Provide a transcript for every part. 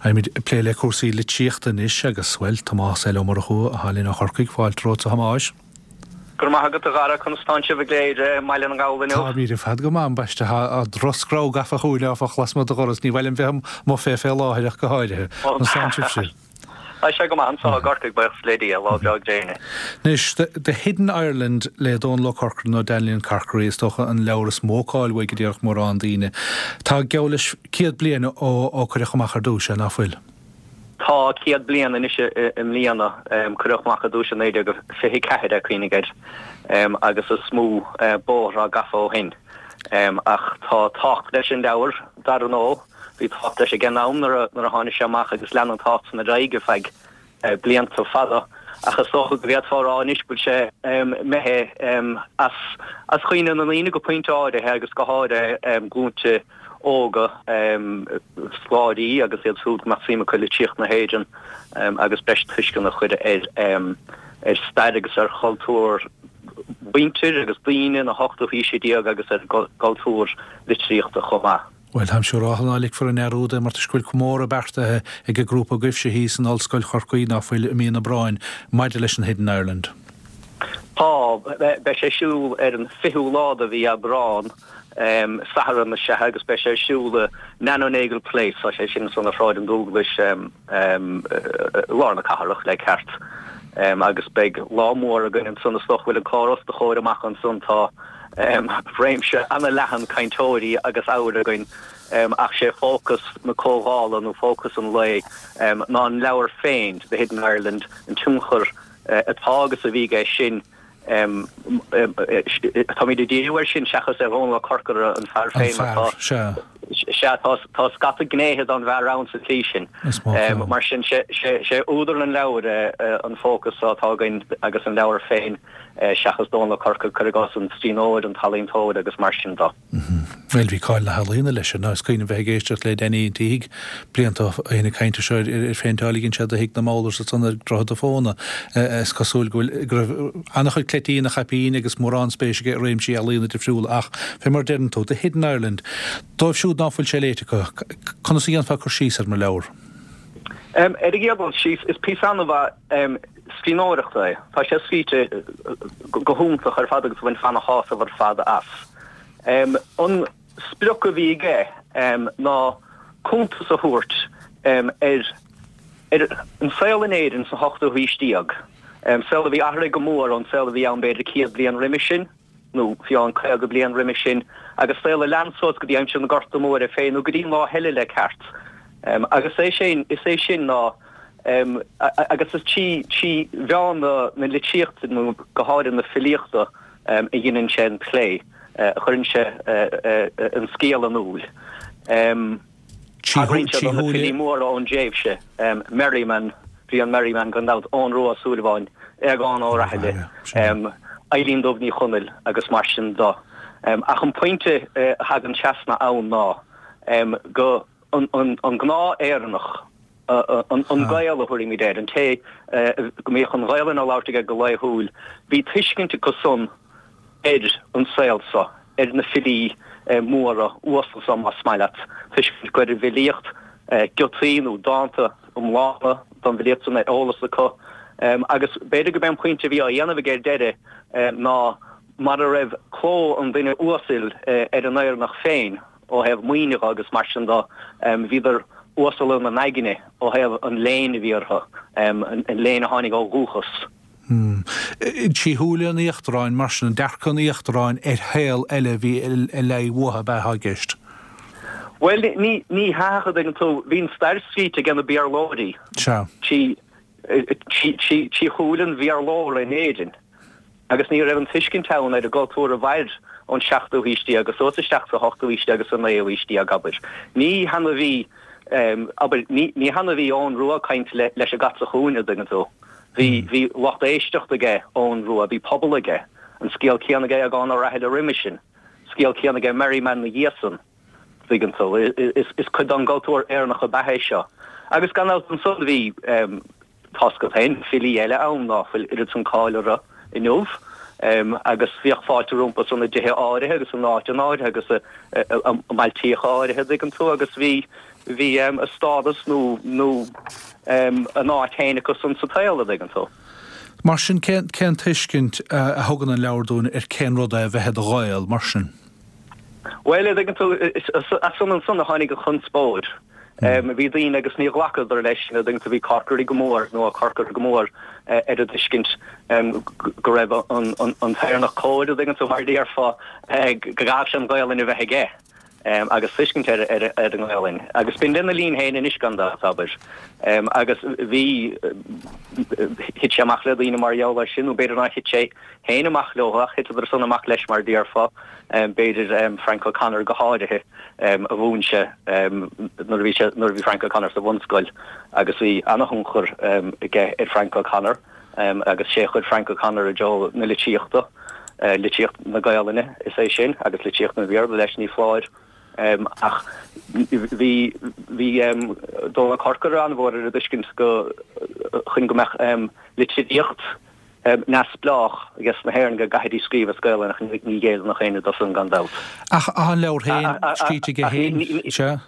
Beimid ag plé le cúrsaí litríochta anois agus, bhuel, Tomás L. Ó Murchú atá linn ó Chorcaigh. Fáilte romhat a Thomáis. Go raibh maith agat a Dhara, conas tánn sibh i gCléire i mBaile na nGall inniu? Táimid ar fad go maith, ambaiste. Tá drochscreamh gafa chugainn áfach lasmuigh do dhoras. Ní mhaith liom bheith amuigh fé fé láthair ach go háirithe. Conas tánn sibhse? Tá sé go maith anseo i gCorcaigh, buíochas le Dia, lá breá gréine. Anois, The Hidden Ireland le Dónal Ó Corcora nó Danley Carkery is dócha an leabhar is mó cáil uaidh a déarfadh mórán daoine. Tá geall leis 100 bliain ó cuireadh amach ar dtús é, ná fuil? Tá 100 bliain anois i mbliana. Cuireadh amach ar dtús i 1924 é, cuimhnigh air, agus is mó bóthar atá gafa ó shin. Ach tá tábhacht leis an leabhar, dar ndóigh. Bhí tábhacht leis ag an am nuair a tháinig sé amach agus lean an tábhacht san ar aghaidh ar feadh blianta fada. Ach is dócha go bhféadfá a rá anois go bhfuil sé imithe as cuimhne na ndaoine go pointe áirithe agus go háirithe glúinte óga, scoláirí agus iad siúd go mbeadh suim acu i litríocht na hÉireann agus breis tuisceana a chur ar stair agus ar chultúr mhuintir agus daoine na hochtú haoise déag agus ar a gcultúr litríochta chomh maith. Bhuel, táim siúráltha ná ligfear i ndearúd é mar toisc go bhfuil comóradh beartaithe ag an grúpa agaibhse thíos in Ollscoil Chorcaí, ná fuil, i mí an Aibreáin, maidir leis an Hidden Ireland. Tá. Beidh sé ar siúl ar an 20ú lá de mhí Aibreán, Satharn is ea, agus beidh sé ar siúl i Nano Nagle Place, tá sé sin ansan ar Shráid an Dúglais, i lár na cathrach, le ceart. Agus beidh lá mór againn ansan, is dócha go bhfuil an clár os do chomhair amach ansan, tá réimse ana-leathan cainteoirí agus ábhair againn ach sé fócas na comhdhála nó fócas an lae ná an leabhar féin, The Hidden Ireland, an tionchar atá agus a bhí aige sin. Táimid ag díriú air sin seachas ar Dhónal Ó Corcora, an fear féin, mar tá, sea, tá scata gnéithe den bhfear ann sa tslí sin. Mar sin, sé údar an leabhair an fócas atá againn agus an leabhar féin seachas Dónal Ó Corcora, cuir i gcás, an scríbhneoir, an t-ealaíontóir agus mar sin de. Bhuel, bhí cáil na healaíona leis, ar ndóigh. Is cuimhin liom bheith ag éisteacht le Danny an tSíthigh blianta ó shin ag caint anseo ar ar phéinteáil a dhein sé do thigh na Mowlers ansan ar Dhroichead a' Phóna. Is cosúil go bhfuil, go raibh an-chuid cleití ina chaipín agus mórán spéis aige i réimsí ealaíona difriúla ach, fé mar a deireann tú, The Hidden Ireland, dóibh siúd ná fuil sé léite acu, conas a dhéanfá cur síos air mar leabhar? Ar an gcéad dul síos, is píosa an-mhaith scríbhneoireachta é. Tá sé scríte go hiontach ar fad agus bhainfeá ana-shásamh ar fad as. An sprioc a bhí aige ná cuntas a thabhairt ar ar an saol in Éirinn sa hochtú haois déag, saol a bhí athraithe go mór ón saol a bhí ann b'fhéidir 100 bliain roimis sin. nó fiú amháin 50 bliain roimis sin, agus saol a lean suas go dtí aimsir na Gorta Móire féin, nó go dtí an lá eile le ceart. Agus é sin, is é sin ná, agus is trí mheán na litríochta, nó go háirithe na filíochta, a dheineann sé an plé, a chuireann sé an scéal in iúl. Tagraíonn sé do na filí móra ón dtréimhse, Merriman, Brian Merriman gan dabht, Eoghan Rua Ó Súilleabháin, Aogán Ó Rathaille, Eilín Dubh Ní Chonaill agus mar sin de. Ach an pointe a thagann trasna ann ná go an gnáth-Éireannach, an Gael a thabharfaimid air, an té go mbíodh an Ghaelainn á labhairt aige go laethúil, bhí tuiscint acu san ar an saol so, ar na filí móra uasal so, más maith leat, tuiscint acu ar an bhfilíocht, giotaí nó dánta iomlána den bhfilíocht san ar eolas acu. Agus b'fhéidir gurb é an pointe a bhí á dhéanamh aige ar deireadh ná mara raibh cló an duine uasail ar an Éireannach féin ó thaobh maoine dhe agus mar sin de, bhíodar uasal ina n-aigne ó thaobh an léinn a bhí orthu, an léinn a tháinig ó dhúchas. Trí shúile an íochtaráin, mar sin, dearcadh an íochtaráin ar shaol eile a bhí le aghaidh uathu ab ea atá i gceist? Bhuel, ní hea, a dtuigeann tú, bhí an stair scríte ag na Béarlóirí. Sea. Trí shúile an Bhéarlóra in Éirinn. Agus ní raibh an tuiscint ann ar an gcultúr a mhair ón seachtú haois déag suas isteach sa hochtú haois déag agus sa naoú haois déag, abair. Ní hann a bhí, abair, ní hann a bhí Eoghan Rua ag caint leis an gcat sa chúinne, a dtuigeann tú. Bhí, bhí lucht éisteachta aige Eoghan Rua, bhí pobal aige. An scéal céanna aige Aogán Ó Rathaille roimhe sin. Scéal céanna aige Merriman 'na dhiaidh san, tuigeann tú. Is cuid den gcultúr Éireannach ab ea é seo. Agus gan dabht ansan bhí, tá's agat féin, filí eile ann ná fuil oiread san cáil orthu inniu. Agus bhíodh fáilte rompu san i dtithe áirithe agus in áiteanna áirithe agus i mbailtíocha áirithe, tuigeann tú, agus bhí. Bhí a stádas nó nó a n-áit féin acu san sa tsaol, a dtuigeann tú. Mar sin, cén cén tuiscint a thugann an leabhar dúinn ar cén rud é a bheith i do Ghael, mar sin? Bhuel, a dtuigeann tú, as san ansan a tháinig an chonspóid. Bhí daoine agus níor ghlacadar leis sin, a dtuigeann tú, bhí Corkery go mór, nó Ó Corcora go mór ar an dtuiscint go raibh an t-Éireannach cóir, a dtuigeann tú, mar a déarfá, go gcaithfeadh sé an Ghaolainn a bheith aige agus tuiscint ar an nGaolainn. Agus b'in lena linn féin anois gan dabht, abair. Agus bhí, thit sé amach le daoine mar gheall air sin, nó b'fhéidir nár thit sé féin amach leo ach thiteadar san amach leis mar a déarfá, b'fhéidir Frank O'Connor go háirithe a mhúin sé nuair a bhí sé, nuair a bhí Frank O'Connor sa bhunscoil agus bhí ana-thionchar aige ar Frank O'Connor agus sé a chuir Frank O'Connor i dtreo na litríochta, litríocht na Gaolainne is é sin agus litríocht an Bhéarla leis ní foláir. Ach bhí, bhí Dónal Corcora an-mhór ar an dtuiscint go, chun go mbeadh litríocht neamhspleách ages na hÉireann go gcaithfidís scríobh as Gaelainn ach ní ghéilleann éinne dó san gan dabht. Ach tá an leabhar féin scríte aige féin, sea?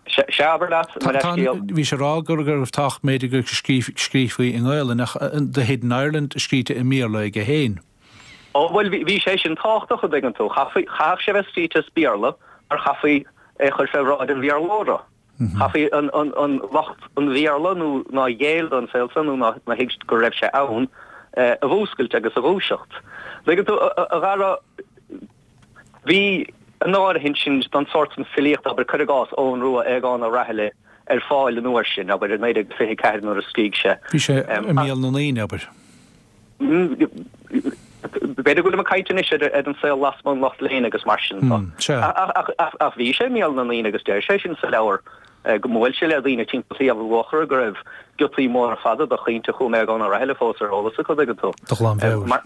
Sea, abair leat, mo leithscéal. Bhí sé ag rá go raibh tábhacht b'fhéidir go scríofaí i nGaelainn ach The Hidden Ireland scríte i mBéarla aige féin. Ó bhuel bhí sé sin tábhachtach a dtuigeann tú. Chaithfeadh sé bheith scríte as Béarla mar chaithfí é a chur fé bhráid an Bhéarlóra. Chaithfí an lucht an Bhéarla nó nár ghéill don saol san nó nár thuig go raibh sé ann a mhúscailt agus a dhúiseacht. Tuigeann tú, a Dhara, bhí an áirithint sin don sórt san filíochta, abair, cuir i gcás, Eoghan Rua, Aogán Ó Raghallaigh, ar fáil an uair sin, abair, i 1924 nuair a scrígh sé. Bhí sé i mbéal na ndaoine, abair. B'fhéidir go bhfuilim ag caint anois ar an saol lasmuigh an lucht léinn agus mar sin de. Ach bhí sé i mbéal na ndaoine agus deir sé sin sa leabhar go mbuail sé le daoine timpeall Shliabh Luachra go raibh giotaí móra fada de chaointe Chú Aogán Ó Raghallaigh fós ar eolas acu, tuigeann tú. De ghlanmheabhair.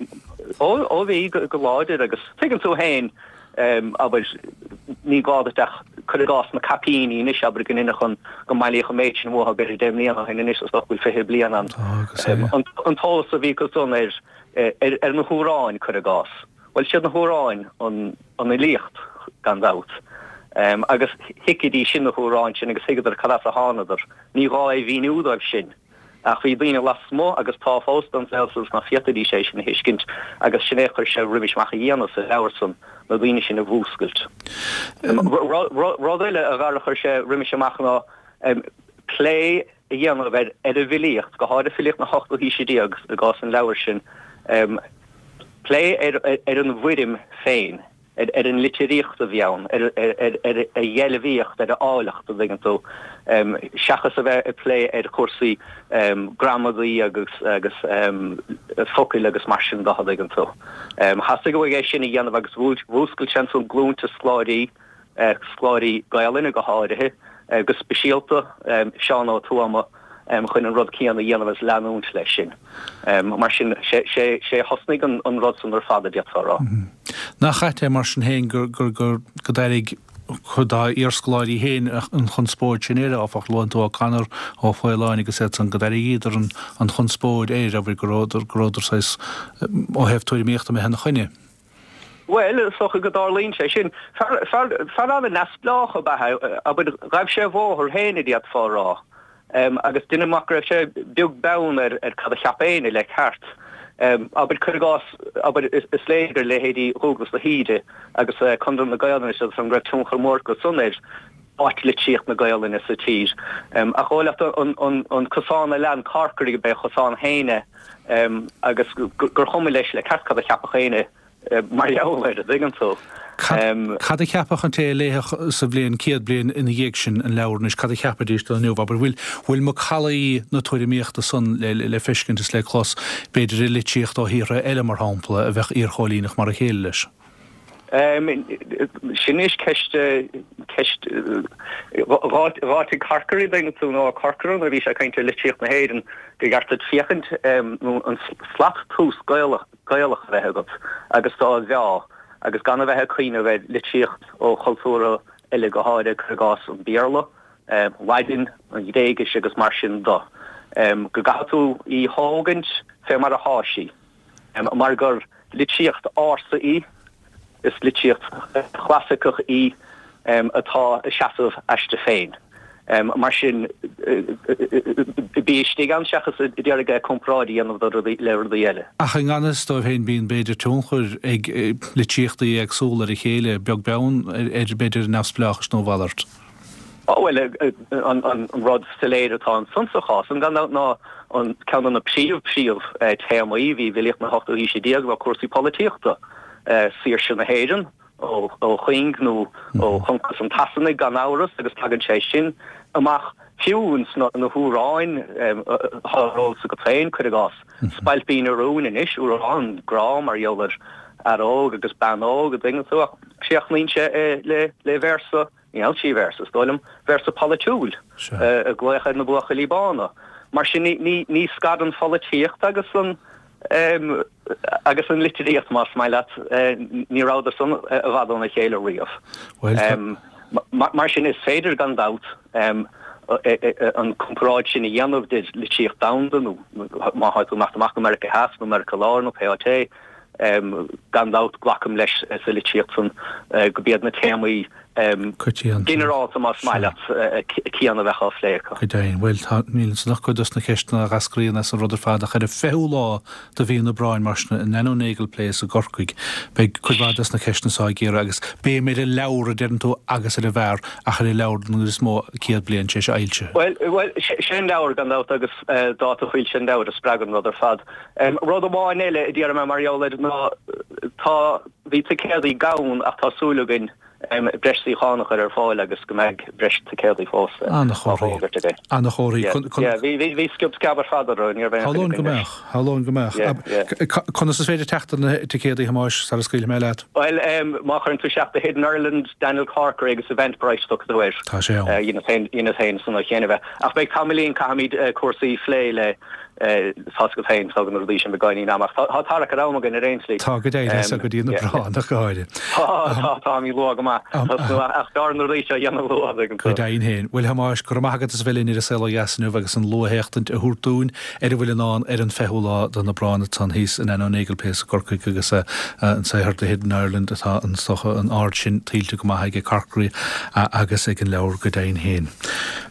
Ó bhí, go láidir agus tuigeann tú féin abair, ní gá duit ach, cuir i gcás, na caipíní anois, abair, go n-inseodh go mbailíodh an méid sin uathu, b'fhéidir 10 mbliana ó shin anois, is dócha go bhfuil 20 bliain ann. An t-eolas a bhí acu san ar, ar na hamhráin, cuir i gcás. Bhuel, siad na hamhráin an fhilíocht, gan dabht. Agus thuigfidís sin na hamhráin sin agus thuigeadar cad as a thánadar. Ní gá é mhíniú dóibh sin. Ach bhí daoine lasmuigh, agus tá fós, den saol san ná féadfaidís é sin a thuiscint, agus sin é a chuir sé roimis amach a dhéanamh sa leabhar san, na daoine sin a mhúscailt. Rud eile, a Dhara, a chuir sé roimis amach ná plé a dhéanamh ar an bhfilíocht, go háirithe filíocht na hochtú haoise déag i gcás an leabhair sin, plé ar an bhfoirm féin. ar an litríocht a bhí ann, ar a dheilbhíocht, ar a áilleacht, an dtuigeann tú, seachas a bheith ag plé ar chúrsaí gramadaí agus agus focail agus mar sin de, an dtuigeann tú. Theastaigh uaidh é sin a dhéanamh agus mhúscail sé ansan glúnta scoláirí, scoláirí Gaelainne go háirithe, go speisialta Seán Ó Tuama, chun an rud céanna a dhéanamh agus leanúint leis sin. Mar sin, sé a thosnaigh an rud san ar fad, a d'fhéadfá a rá. Nach ait é mar sin féin gur d'airigh cuid dá iarscoláirí féin an chonspóid sin air, áfach? Luann tú O'Connor, Ó Faoláin agus iad san, go d'airigíodar an chonspóid air, abair, go rabhadar saghas, ó thaobh tuairimíochta, imithe ina choinne. Bhuel, is dócha go dtarlaíonn sé sin. Fear an-neamhspleách ab ea é, abair, ghaibh sé a bhóthar féin, a d'fhéadfá a rá. Agus deinim amach go raibh sé beag beann ar cad a cheap éinne le ceart. Abair, cuir i gcás, abair, is léir gur leithéidí Dhúglas de hÍde agus Conradh na Gaelainne is iad san go raibh tionchar mór acu san ar áit litríocht na Gaelainne sa tír. Ach dhóigh leat an cosán a lean Corkery gurb é a chosán féin é. agus gur chuma leis le ceart cad a cheapfadh éinne mar gheall air, an dtuigeann tú. Cad a cheapfadh an té a léifeadh sa bhliain, 100 bliain ina dhiaidh sin an leabhar anois, cad a cheapfaidís de inniu? Abair, bhfuil, bhfuil macallaí na tuairimíochta san le, le feiscint is le clos, b'fhéidir i litríocht ó thíortha eile, mar shampla, a bheadh iarchóilíneach mar a chéile leis? Sin anois ceist, ceist, dh'áitigh Corkery, an dtuigeann tú, nó Ó Corcora nuair a bhí sé ag caint ar litríocht na hÉireann, gur cheart duit féachaint nó an slat tomhais Gaelach, Gaelach a bheith agat agus do mheá agus gan a bheith ag cuimhneamh ar litríocht ó chultúrtha eile go háirithe, cuir i gcás an Béarla, Laidin, an Ghréigis agus mar sin de. Go gcaithfidh tú í thógaint fé mar athá sí. Mar gur litríocht ársa í, is litríocht chlasaiceach í atá ag seasamh aisti féin. Mar sin, bí istigh ann seachas ag iarraidh comparáid a dhéanamh le rudaí eile. Ach i ngan fhios dóibh féin bíonn b'fhéidir tionchar ag litríochtaí éagsúla ar a chéile, beag beann ar b'fhéidir neamhspleáchas nó a mhalairt. Ó bhuel, an rud soiléir atá ansan sa chás san gan dabht ná an ceann de na príomh príomh téamaí a bhí i bhfilíocht na hochtú haoise déag ná cúrsaí polaitíochta, saoirse na hÉireann, ó chuing nó ó choncas an tSasanaigh gan amhras agus tagann sé sin amach fiú ins na hamhráin atá ar eolas agat féin, cuir i gcás, Spailpín an Rúin anois, amhrán grá mar gheall ar fhear óg agus bean óg an dtuigeann tú ach críochnaíonn sé le véarsa, níl trí véarsa is dóigh liom, véarsa polaitiúil ag glaoch ar na buachaillí bána. Mar sin ní scarann pholaitíocht agus an agus an litríocht, más maith leat, ní rabhadar san i bhfad óna chéile riamh. Mar sin is féidir gan dabht an comparáid sin a dhéanamh idir litríocht domhanda nó má tá tú ag imeacht amach go Meiriceá Theas nó Meiriceá Láir nó pé áit é, Gan dabht, glacaim leis sa litríocht san go b'iad na téamaí ginearálta, más maith leat, céanna a bheadh á phlé acu. Go deimhin. Bhuel, tá, níl ansan ach cuid dos na ceisteanna a dh'eascraíonn as an rud ar fad, ach ar an 20ú lá de mhí an Aibreáin, mar sin, in Nano Nagle Place i gCorcaigh, beidh cuid mhaith dos na ceisteanna so á gcíoradh agus béim ar an leabhar, a deireann tú, agus ar an bhfear, ach ar an leabhar den gcuid is mó, 100 bliain tar éis a fhoilsithe. Bhuel, bhuel, sé an leabhar, gan dabht, agus dáta foilsithe an leabhair a spreag an rud ar fad. Rud amháin eile a déarfaidh mé mar gheall air ná tá, bhí ticéadaí gann ach tá súil againn breis suíochán a chur ar fáil agus go mbeidh breis ticéadaí fós á bhfógairt againn. Ana-chomharthaí. Yeah, bhí, bhí, bhí sciob sceab ar fad orthu, ní raibh aon choinne againn leis. Shamhlóinn go mbeadh, shamhlóinn go mbeadh. Yeah, yeah. Conas is féidir teacht ar na ticéadaí, a Thomáis, sara scaoilfidh mé leat? Bhuel, má chuireann tú isteach The Hidden Ireland, Daniel Corkery agus Eventbrite tiocfaidh tú air. Tá sé ann. Dheineas féin, dheineas féin san chéanna bheith. Ach beidh tamaillín, caithfimid cúrsaí a phlé le, Tá's agat féin, tógann na rudaí sin beagáinín ama ach tá tarrac ar am againn ar aon tslí. Tá go deimhin, is go dtí an Aibreán ach go háirithe. Tá, tá, táimid luath go maith. Ach b'fhearr na rudaí seo a dhéanamh luath, an dtuigeann tú. Go deimhin féin. Bhuel, a Thomáis, go raibh maith agat as a bheith linn ar An Saol Ó Dheas inniu agus an luathéachtaint a thabhairt dúinn ar a bhfuil i ndán ar an 20ú lá den Aibreán ansan thíos in Nano Nagle Place i gCorcaigh agus an saothar The Hidden Ireland atá an, is dócha, an aird sin tuillte go maith aige Corkery agus ag an leabhar go deimhin féin.